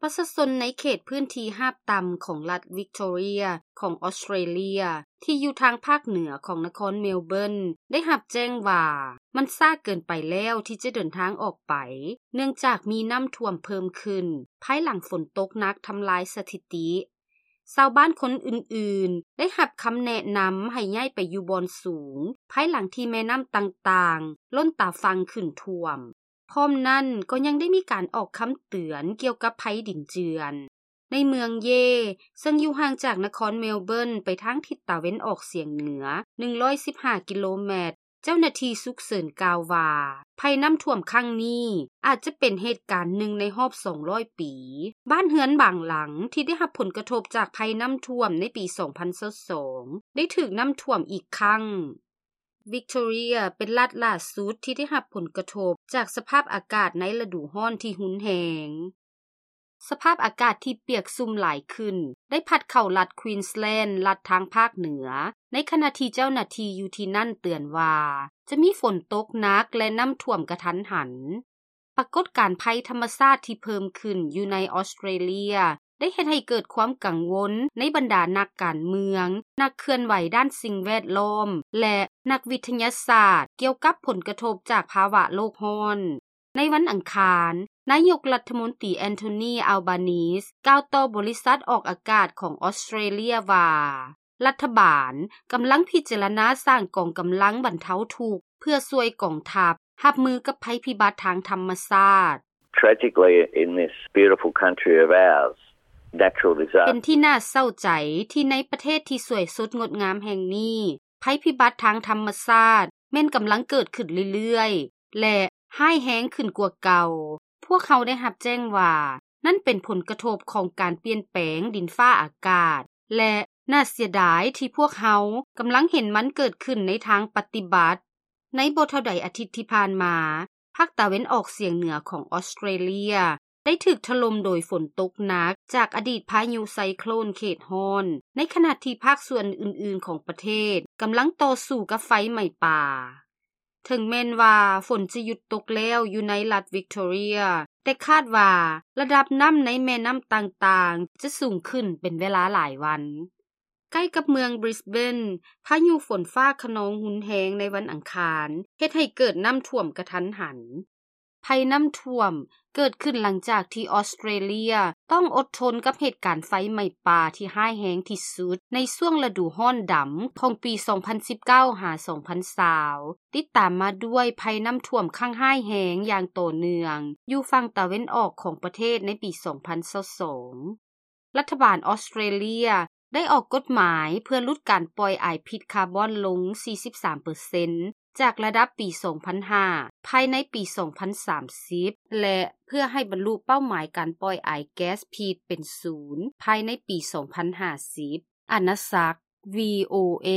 ປະຊາຊົນໃນເຂດພື້ນທີ່ຮາບຕ່ຳຂອງລັດວິກໂຕເຣຍຂອງອອສເຕຣເລັຍ ທີ່ຢູ່ທາງພາກເໜືອຂອງນະຄອນເມລເບີນ ໄດ້ຮັບແຈ້ງວ່າ ມັນຊ້າເກີນໄປແລ້ວທີ່ຈະເດີນທາງອອກໄປ ເນື່ອງຈາກມີນ້ຳຖ້ວມເພີ່ມຂຶ້ນ ພາຍຫຼັງຝົນຕົກໜັກທຳລາຍສະຖິຕິ. ຊາວບ້ານຄົນອື່ນໆ ໄດ້ຮັບຄຳແນະນຳໃຫ້ຍ້າຍໄປຢູ່ບ່ອນສູງ ພາຍຫຼັງທີ່ແມ່ນ້ຳຕ່າງໆ ລົ້ນຕາຝັ່ງຂຶ້ນຖ້ວມ. ພ້ອມນັ້ນກໍຍັງໄດ້ມີການອອກຄຳເຕືອນກ່ຽວກັບໄພດິນເຈື່ອນ. ໃນເມືອງເຢ ເຊິ່ງຢູ່ຫ່າງຈາກນະຄອນເມລເບີນໄປທາງທິດຕາເວັນອອກສຽງເໜືອ ໜຶ່ງຮ້ອຍສິບຫ້າ ກິໂລແມັດ, ເຈົ້າໜ້າທີ່ສຸກເສີນກ່າວວ່າ ໄພນ້ຳຖ້ວມຄັ້ງນີ້ອາດຈະເປັນເຫດການໜຶ່ງໃນຮອບສອງຮ້ອຍປີ. ບ້ານເຮືອນບາງຫຼັງທີ່ໄດ້ຮັບຜົນກະທົບຈາກໄພນ້ຳຖ້ວມໃນປີສອງພັນຊາວສອງ ໄດ້ຖືກນ້ຳຖ້ວມອີກຄັ້ງ. ວິກໂຕເຣຍເປັນລັດຫຼ້າສຸດທີ່ໄດ້ຮັບຜົນກະທົບຈາກສະພາບອາກາດໃນລະດູຮ້ອນທີ່ຮຸນແຮງ. ສະພາບອາກາດທີ່ປຽກຊຸ່ມຫຼາຍຂຶ້ນ ໄດ້ພັດເຂົ້າລັດຄວີນສແລນ ລັດທາງພາກເໜືອ, ໃນຂະນະທີ່ເຈົ້າໜ້າທີ່ຢູ່ທີ່ນັ້ນເຕືອນວ່າ ຈະມີຝົນຕົກໜັກ ແລະ ນ້ຳຖ້ວມກະທັນຫັນ. ປາກົດການໄພທຳມະຊາດທີ່ເພີ່ມຂຶ້ນຢູ່ໃນອອສເຕຣເລັຍ ໄດ້ເຮັດໃຫ້ເກີດຄວາມກັງວົນໃນບັນດານັກການເມືອງ, ນັກເຄື່ອນໄຫວດ້ານສິ່ງແວດລ້ອມ ແລະ ນັກວິທະຍາສາດ ກ່ຽວກັບຜົນກະທົບຈາກພາວະໂລກຮ້ອນ. ໃນວັນອັງຄານ, ນາຍົກລັດຖະມົນຕີ ແອນໂທນີ ອາລບານີສ ກ່າວຕໍ່ບໍລິສັດອອກອາກາດຂອງອອສເຕຣເລັຍວ່າ ລັດຖະບານກຳລັງພິຈາລະນາສ້າງກອງກຳລັງບັນເທົາທຸກ ເພື່ອຊ່ວຍກອງທັບຮັບມືກັບໄພພິບັດທາງທຳມະຊາດ. Tragically, in this beautiful country of ours, natural disaster ເປັນທີ່ໜ້າເສົ້າໃຈທີ່ໃນປະເທດທີ່ສວຍສົດງົດງາມແຫ່ງນີ້, ໄພພິບັດທາງທຳມະຊາດແມ່ນກຳລັງເກີດຂຶ້ນເລື້ອຍໆ ແລະ ຮ້າຍແຮງຂຶ້ນກວ່າເກົ່າ. ພວກເຮົາໄດ້ຮັບແຈ້ງວ່າ ນັ້ນເປັນຜົນກະທົບຂອງການປ່ຽນແປງດິນຟ້າອາກາດ ແລະ ໜ້າເສຍດາຍທີ່ພວກເຮົາກຳລັງເຫັນມັນເກີດຂຶ້ນໃນທາງປະຕິບັດ. ໃນບໍ່ເທົ່າໃດອາທິດທີ່ຜ່ານມາ, ພາກຕາເວັນອອກສຽງເໜືອຂອງອອສເຕຣເລັຍ ໄດ້ຖືກຖະຫຼົ່ມໂດຍຝົນຕົກໜັກຈາກອະດີດພາຍຸໄຊໂຄຣນເຂດຮ້ອນ, ໃນຂະນະທີ່ພາກສ່ວນອື່ນໆຂອງປະເທດກຳລັງຕໍ່ສູ້ກັບໄຟໄໝ້ປ່າ. ເຖິງແມ່ນວ່າຝົນຈະຢຸດຕົກແລ້ວຢູ່ໃນລັດວິກໂຕເຣຍ, ແຕ່ຄາດວ່າລະດັບນ້ຳໃນແມ່ນ້ຳຕ່າງໆຈະສູງຂຶ້ນເປັນເວລາຫຼາຍວັນ. ໃກ້ກັບເມືອງບຣິສເບນ, ພາຍຸຝົນຟ້າຄະນອງຮຸນແຮງໃນວັນອັງຄານ ເຮັດໃຫ້ເກີດນ້ຳຖ້ວມກະທັນຫັນ. ໄພນ້ຳຖ້ວມເກີດຂຶ້ນຫຼັງຈາກທີ່ອອສເຕຣເລັຍຕ້ອງອົດທົນກັບເຫດການໄຟໄໝ້ປ່າທີ່ຮ້າຍແຮງທີ່ສຸດໃນຊ່ວງລະດູຮ້ອນດຳຂອງປີສອງພັນສິບເກົ້າຫາສອງພັນຊາວ ຕິດຕາມມາດ້ວຍໄພນ້ຳຖ້ວມຄັ້ງຮ້າຍແຮງຢ່າງຕໍ່ເນື່ອງຢູ່ຝັ່ງຕາເວັນອອກຂອງປະເທດໃນປີສອງພັນຊາວສອງ. ລັດຖະບານອອສເຕຣເລັຍໄດ້ອອກກົດໝາຍເພື່ອຫຼຸດການປ່ອຍອາຍພິດຄາບອນລົງສີ່ສິບສາມເປີເຊັນ ຈາກລະດັບປີສອງພັນຫ້າ ພາຍໃນປີສອງພັນສາມສິບ ແລະ ເພື່ອໃຫ້ບັນລຸເປົ້າໝາຍການປ່ອຍອາຍແກັສພິດເປັນສູນ ພາຍໃນປີສອງພັນຫ້າສິບ. ອານາສັກ ວີໂອເອ.